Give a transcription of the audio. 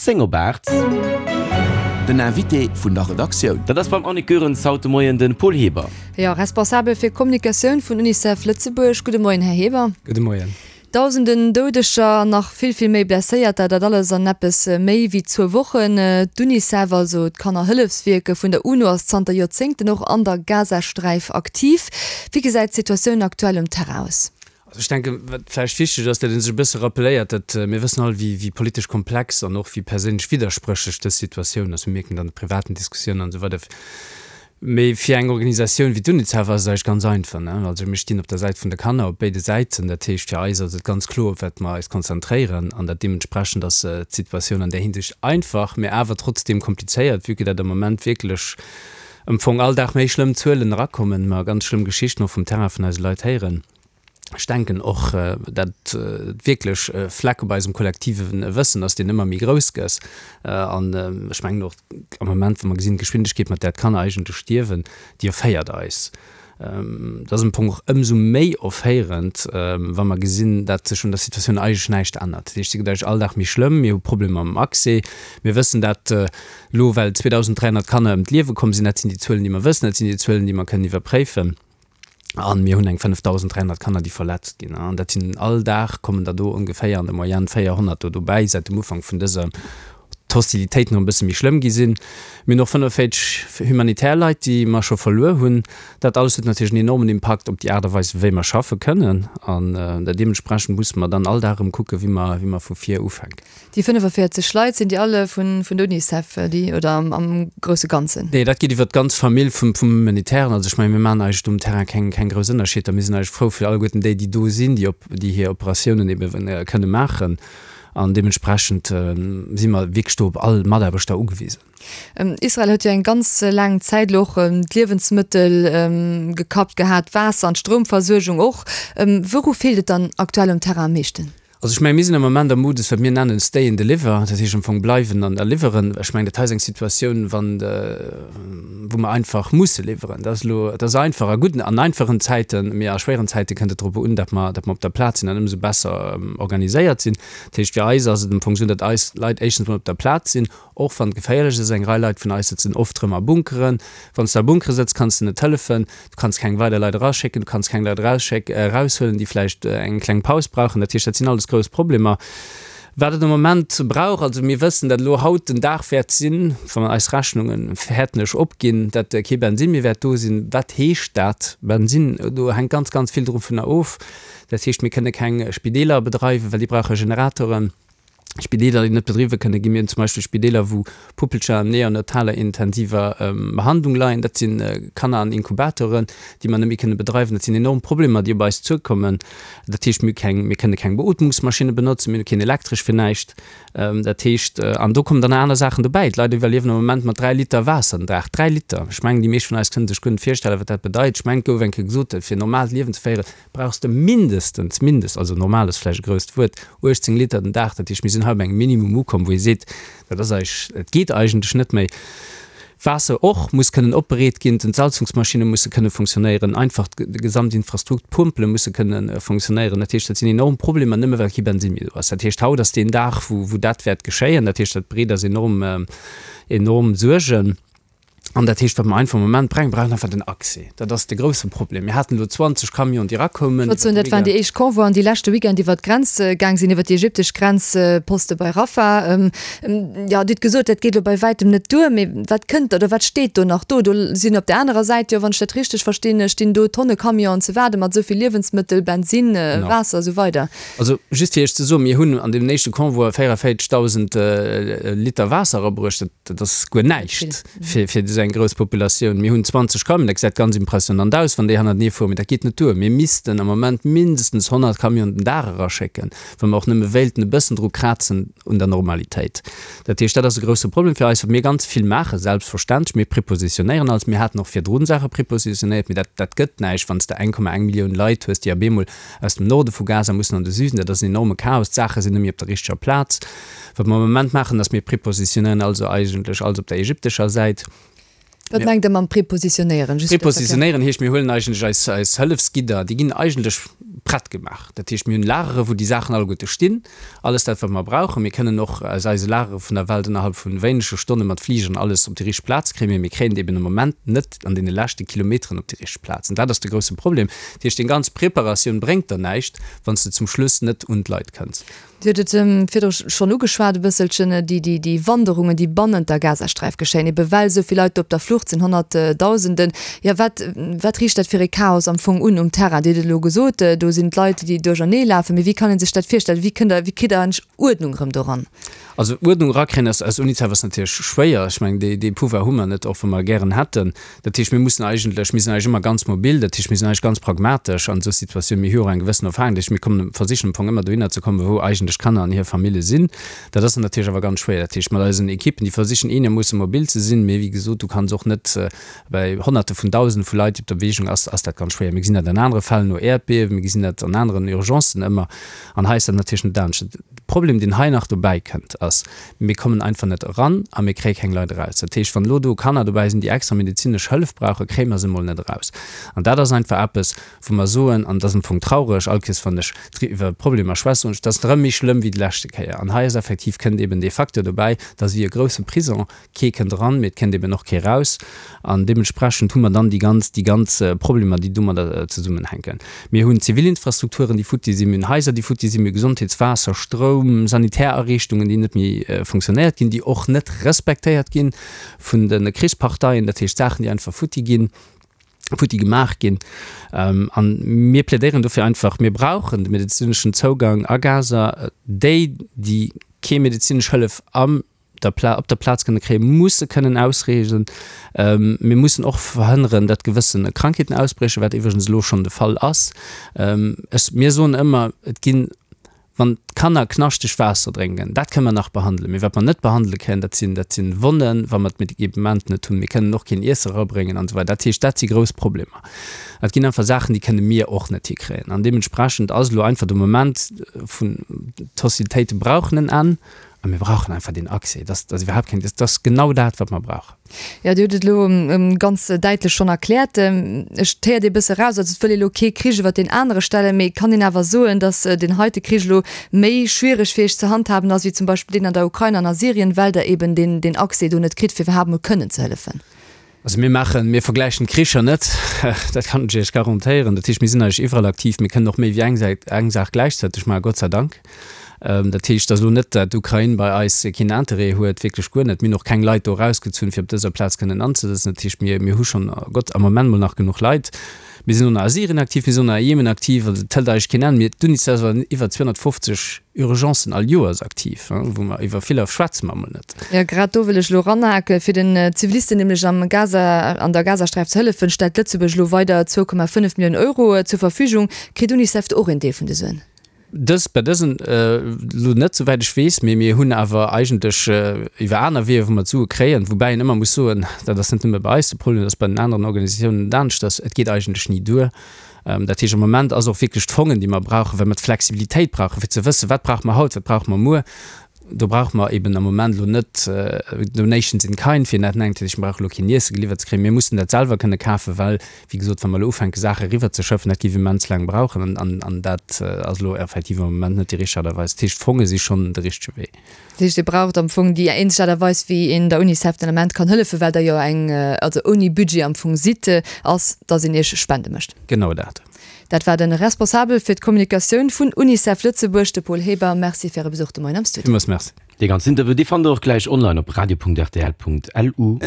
10 op 8. Den Invité vun der Redaktioun. Dat ass beim Annick Goerens haut de Moien de Paul Heber. Jo, Responsabel fir Kommunikatioun vun Unicef Lëtzebuerg. Gudde Moien, Här Heber. Gudde Moien. Dausenden Doudeger an nach vill, vill méi Blesséierter, dat alles an eppes méi wéi zwou Wochen. D'Unicef, also d'Kannerhëllefswierke vun der UNO, ass zanter Joerzéngten och an der Gazasträif aktiv. Wéi gesäit d'Situatioun aktuell um Terrain aus? Also ech denken, wat vläicht wichteg ass, datt ee sech e bësse rappeléiert, datt mir wëssen all, wéi politesch komplex an och wéi perséinlech widderspréchlech dës Situatioun ass. Mir mierken et an de privaten Diskussiounen an esou weider. Mee fir eng Organisatioun wéi d'Unicef ass et eigentlech ganz einfach, ne? Also mir stinn op der Säit vun de Kanner, op béide Säiten. Dat heescht, fir eis ass et ganz kloer, op wat mer eis konzentréieren. An dat deementsprechend ass d'Situatioun an där Hinsicht einfach, mee awer trotzdeem komplizéiert, vue que dat am Moment wierklech am Fong all Dag méi schlëmm Zuelen erakommen, mer ganz schlëmm Geschichten och vum Terrain vun eise Leit héieren. Ech denken och, dat wierklech e Fleck op eisem kollektive Wëssen ass, deen ëmmer méi grouss gëss. An ech mengen och am Moment, wa mer gesinn, d'Geschwindegkeet, mat där d'Kanner eigentlech stierwen, déi erféiert eis. Dat ass am Fong och ëmsou méi erféierend, wa mer gesinn, dat sech un der Situatioun eigentlech näischt ännert. Dat heescht, se gëtt eigentlech all Dag méi schlëmm. Mir hu Problemer mam Accès. Mir wëssen dat elo, well 2.300 Kanner ëm d'Liewe komm sinn. Dat sinn déi Zuelen, déi mer wëssen. Dat sinn déi Zuelen, déi mer kënnen iwwerpréifen. An mir hunn eng 5.300 Kanner, déi verletzt ginn. An dat sinn, all Dag kommen der do ongeféier an der Moyenne 400 do dobäi, säit dem Ufank vun dëser d'Hostilitéiten och e bësse méi schlëmm gi sinn. Mir hunn och 45 humanitär Leit, déi mer scho verluer hunn. Dat alles huet natierlech en enormen Impakt op déi Aart a Weis, wéi mer schaffe kënnen. An deementsprechend musse mer dann all Dag erëm kucken, wéi mer, wéi mer vu vir ufänken. Déi 45 Leit, sinn déi alle vun der Unicef, déi, oder am grousse Ganzen? Nee, dat geet iwwer d'ganz Famill vum Humanitären. Also ech mengen, mir maachen eigentlech do um Terrain keng, keng grouss Ënnerscheeder. Mir sinn eigentlech frou fir alleguerten déi, déi do sinn, déi op, déi hir Operatiounen ebe kënne maachen. An deementsprechend si mer wierklech do op all Mataarbechter ugewisen. Israel huet jo eng ganz laang Zäit elo och d'Liewensmëttel gekappt gehat, d'Waasser an d'Stroumversuergung och. Wouru feelt et dann aktuell um Terrain am meeschten? Also ech mengen, mir sinn am Moment am Modus, wat mir nennen stay and deliver, dat heescht am Fong bleiwen an a liwweren. Ech mengen, dat hei ass eng Situatioun, wann de, wou mer einfach musse liwweren. Dat ass elo, dat ass einfach a gudden, an einfachen Zäiten, mee a schwéieren Zäite kënnt et drop un, datt mer, datt mer op der Plaz sinn an ëmsou besser organiséiert sinn. Dat heescht, fir eis ass et am Fong esou, datt eis Leit éischtens mol op der Plaz sinn, Och wann et geféierlech ass, eng Rei Leit vun eis sëtzen oft rëm a Bunkeren. Wann s de a Bunkere sëtz, kanns de net hëllefen, du kanns keng weider Leit eraschécken, du kanns keng Leit eraushuelen, déi vläicht eng kleng Paus brauchen. Dat heescht, dat sinn alles grouss Problemer. Wat et am Moment brauch, also mir wëssen, datt elo haut den Dag wäert sinn, wa mer eis Rechnunge fäerten ech opginn, datt kee Bensinn méi wäert do sinn. Wat heescht dat, Bensinn? Do hänkt ganz, ganz vill dovunner of. Dat heescht, mir kënne keng Spideeler bedreiwen, well déi brauche Generatoren. Spideeler, déi net bedriwwe kënne ginn. Mir hunn zum Beispill Spideeler, wou Puppelcher an neonataler intensiver Behandlung leien. Dat si Kanner an Inkubatoren, déi mer net méi kënne bedreiwen. Dat sinn enorm Problemer, déi op eis zuekommen. Dat heescht, mir hu keng, mir kënne keng Beootmungsmaschinne benotzen, mir hu keen Elektresch fir näischt. Dat heescht, an do kommen dann nach aner Saachen dobäi. D'Leit iwwerliewen am Moment mat 3 Liter Waasser den Dag. 3 Liter! Ech mengen, déi meescht vun eis kënne sech guer net virstellen, wat dat bedeit. Ech mengen, et gouf eng Kéier gesot, fir e normaalt Liewen ze féieren, brauchs de mindestens, mindest, also normal ass vläicht e grousst Wuert, 18 Liter den Dag. Dat heescht, mir sinn hei op engem Minimum ukomm, wou ee seet, dat ass eig, et geet eigentlech net méi. Waasser och muss kënnen opbereet ginn, d'Entsalzungsmaschinne musse kënne funktionéieren, einfach d'Gesamtinfrastrukt, d'Pompele musse kënne funktionéieren. Dat heescht, dat sinn enorm Problemer, nëmme well kee Bensinn méi do ass. Dat heescht, haut ass deen Dag, wou, wou dat wäert geschéien. Dat heescht, dat bereet eis enorm, enorm Suergen. An dat heescht, wat mer einfach am Moment brengen, brauchen einfach den Accès. Dat ass de grousse Problem. Mir haten elo 20 Camionen, déi erakoumen. Ech wollt soen, dat waren déi éischt Convoien, déi leschte Weekend iwwert d'Grenz gaang sinn, iwwert déi ägyptesch Grenzposte bei Rafah. Jo, Dir hutt gesot, dat geet elo bei wäitem net duer. Mee wat kënnt oder wat steet do nach do? Do sinn op där anerer Säit jo, wann ech dat richteg verstinn, stinn do Tonne Camionen ze waarde mat esou vill Liewensmëttel, Bensinn, Waasser a sou weider. Also just fir Iech ze soen, mir hunn an deem éischte Convoi 44.000 Liter Waasser erabruecht. Dat ass guer näischt fir esou eng grouss Populatioun. Mir hunn 20 Camionen, dat gesäit ganz impressionant aus, wann déi hannertenee fueren, mee dat geet net duer. Mir missten am Moment mindestens 100 Camionen den Dag eraschécken, wa mer och nëmme wéilten e bëssen dru krazen un der Normalitéit. Dat heescht, dat ass e grousse Problem fir eis, wat mir ganz vill maachen, selbstverständlech, mir prepositionéieren alles. Mir haten och virdrun Saache prepositionéiert, mee dat, dat gëtt näischt, wann s de 1,1 Millioun Leit hues, déi op eemol aus dem Norde vu Gaza mussen an de Süden. Dat ass en enorme Chaos. D'Saache sinn net méi op der richteger Plaz. Wat mer am Moment maachen, ass, mir prepositionéieren also eigentlech alles op der ägyptescher Säit. Wat mengt Der mam prepositionéieren? Just fir ze erklären. Prepositionéieren heescht, mir huelen eigentlech eis, eis Hëllefsgidder, déi ginn eigentlech prett gemaach. Dat heescht, mir hunn Lagere wou déi Saachen alleguerte stinn, alles dat wat mer brauchen. Mir kënnen och aus eise Lagere vun der Welt ënnerhalb vu wéinege Stonne mat Fligeren alles op déi richteg Plaz kréien, mee mir kréien et eben am Moment net an deene leschte Kilometeren op déi richteg Plaz. An dat ass de grousse Problem. Dat heescht, deng ganz Preparatioun bréngt der näischt, wann s de zum Schluss net un d'Leit kënns. Dir hutt et virdru schonn ugeschwat e bësselchen, déi Wanderungen, déi bannent der Gazasträif geschéien, ebe well esou vill Leit do op der Flucht sinn, Honnertdausenden. Jo, wat, wat riicht dat fir e Chaos am Fong un um Terrain? Dir hutt et elo gesot, do sinn d'Leit, déi duerchernee lafen. Mee wéi kann ee sech dat virstellen? Wéi kënnt Der, wéi kritt Der endlech Uerdnung erëm doran? Also Uerdnung erakréien aus, aus UNICEF ass natierlech schwéier. Ech mengen, dee, dee Pouvoir hu mer net, och wa mer e gären hätten. Dat heescht, mir mussen eigentlech, mir sinn eigentlech ëmmer ganz mobil, dat heescht, mir sinn eigentlech ganz pragmatesch an esou Situatiounen. Mir hu jo och eng gewëssen Erfahrung, dat heescht, mir kommen, versichen am Fong ëmmer dohinner ze kommen, wou eigentlech d'Kanner an hir Famille sinn. Dat ass dann natierlech awer ganz schwéier. Dat heescht, mat eisen Ekippen, déi versichen eenermoosse mobil ze sinn, mee wéi gesot, du kanns och net bei Honnerte vun Dausende vu Leit, déi op der Bewegung ass, ass dat ganz schwéier. Mir gesinn dat an anere Fäll no Äerdbiewen, mir gesinn dat an aneren Urgencen ëmmer an hei ass dat natierlech net anescht. De Problem, deen hei nach dobäi kënnt, ass, Mir kommen einfach net eran a mir kréie keng Leit eraus. Dat heescht, wann elo do Kanner dobäi sinn, déi extra medezinesch Hëllef brauchen, kréie mer se emol net eraus. An dat ass einfach eppes, wou mer soen, an dat ass am Fong traureg, all Kees wann ech iwwer Problemer schwätze, soen ech, dat ass erëm méi schlëmm wéi déi leschte Kéier. An hei ass effektiv, kënnt eben dee Facteur dobäi, dat ass wéi e grousse Prison, Kee kënnt eran, mee et kënnt eben och kee raus. An deementsprechend hu mer dann déi ganz, déi ganz Problemer, déi domadder zesummenhänken. Mir hunn Zivilinfrastrukturen, déi futti sinn, mir hunn Haiser, déi futti sinn, mir hu Gesondheets-, Waasser-, Stroum-, Sanitärariichtungen, déi net méi funktionéiert ginn, déi och net respektéiert gi vun de Krichsparteien, dat heescht Saachen, déi einfach futti ginn, futti gemaach ginn. An mir plädéieren dofir einfach, mir brauchen de medezineschen Zougang a Gaza. Déi, déi kee medezinesch Hëllef am der Pla op der Plaz kënne kréien, musse kënnen ausreesen. Mir mussen och verhënneren, datt gewësse Krankheeten ausbriechen, wat iwwregens elo schonn de Fall ass. Ech, mir soen ëmmer, et ginn, wann d'Kanner knaschteg Waasser drénken, dat kënne mer nach behandelen, mee wat mer net behandele kënnen, dat sinn, dat sinn Wonnen, wa mer d'Medikament net hunn. Mir kënnen och keen Iesse erabréngen an esou weider. Dat heescht, dat si grouss Problemer. Et ginn einfach Saachen, déi kënne mir och net hikréien. An deementsprechend ass elo einfach de Moment vun, d'Hostilitéite brauchen en Enn. A mir brauchen einfach deen Accès. Dat ass iwwerhaapt keng, dat ass genau dat, wat mer brauchen. Jo, Dir hutt et elo ganz däitlech schonn erkläert. Ech, et héiert ee bësse eraus, also et wëll ee elo kee Krich iwwer deen anere stellen, mee kann een awer soen, datt deen heite Krich elo méi schwiereg fir Iech ze handhaben ass wéi zum Beispill deen an der Ukrain an a Syrien, well Der eben deen, deen Accès do net kritt, fir iwwerhaapt emol kënnen ze hëllefen? Also mir maachen, mir vergläichen d'Kricher net, dat kann ech Iech garantéieren. Dat heescht, mir sinn eigentlech iwwerall aktiv, mir kënnen och méi wéi eng Säit, eng Saach gläichzäiteg maachen, Gott sei Dank. Dat heescht, et ass elo net, dat d'Ukrain bei eis keen Interêt huet, wierklech guer net. Mir hunn och keng Leit do erausgezunn, fir op dëser Plaz kënnen anzesëtzen. Dat heescht, mir, mir hu schonn, Gott, am Moment mol nach genuch Leit. Mir sinn och nach a Syrien aktiv, mir sinn och nach a Jemen aktiv, also et hëlt eigentlech keen Enn. Mir, d'UNICEF ass an iwwer 250 Urgencen all Joers aktiv, wou mer iwwer viller schwätze mer emol net. Jo, grad do wëll ech elo eranhaken. Fir den Zivilisten nämlech am Gaza, an der Gazasträif ze hëllefen, stellt Lëtzebuerg elo weider 2,5 Milliounen Euro zur Verfügung. Kritt UNICEF do och een Deel vun de Suen? Dës, bei dësen elo net, souwäit ech weess, mee mir hunn awer eigentlech iwwer aner Weeër, wou mer d'Sue kréien, woubäi een ëmmer muss soen, dat ass net nëmme bei eis de Problem, dat ass bei den aneren Organisatiounen net aneschters, et geet eigentlech ni duer. Dat heescht, am Moment ass och wierklech d'Fongen, déi mer brauchen, well mer d'Flexibilitéit brauchen, fir ze wëssen, wat brauche mer haut, wat brauche mer muer. Do brauche mer eben am Moment elo net Donations in kind, wéi een dat nennt. Dat heescht, mir brauche elo keen Iesse geliwwert ze kréien. Mir mussen dat selwer kënne kafen, well, wéi gesot, wa mer elo ufänke Saache eriwwerzeschëffen, dat géif immens laang brauchen. An dat ass elo effektiv am Moment net déi richteg Aart a Weis. Dat heescht, d'Fonge si schonn de richtege Wee. Dat heescht, Dir braucht am Fong déi eenzeg Aart a Weis, wéi een der Unicef den Ament kann hëllefen, well Der jo eng, also ouni Budget am Fong sidd, ass, dass een Iech Spende mécht. Genau dat. Dat war de Responsabel fir d'Kommunikatioun vun Unicef Lëtzebuerg, de Paul Heber. Merci fir Äre Besuch de Moien am Studio. Villmools Merci. Dee ganzen Interview, dee fannt der och gläich online op radio.rtl.lu.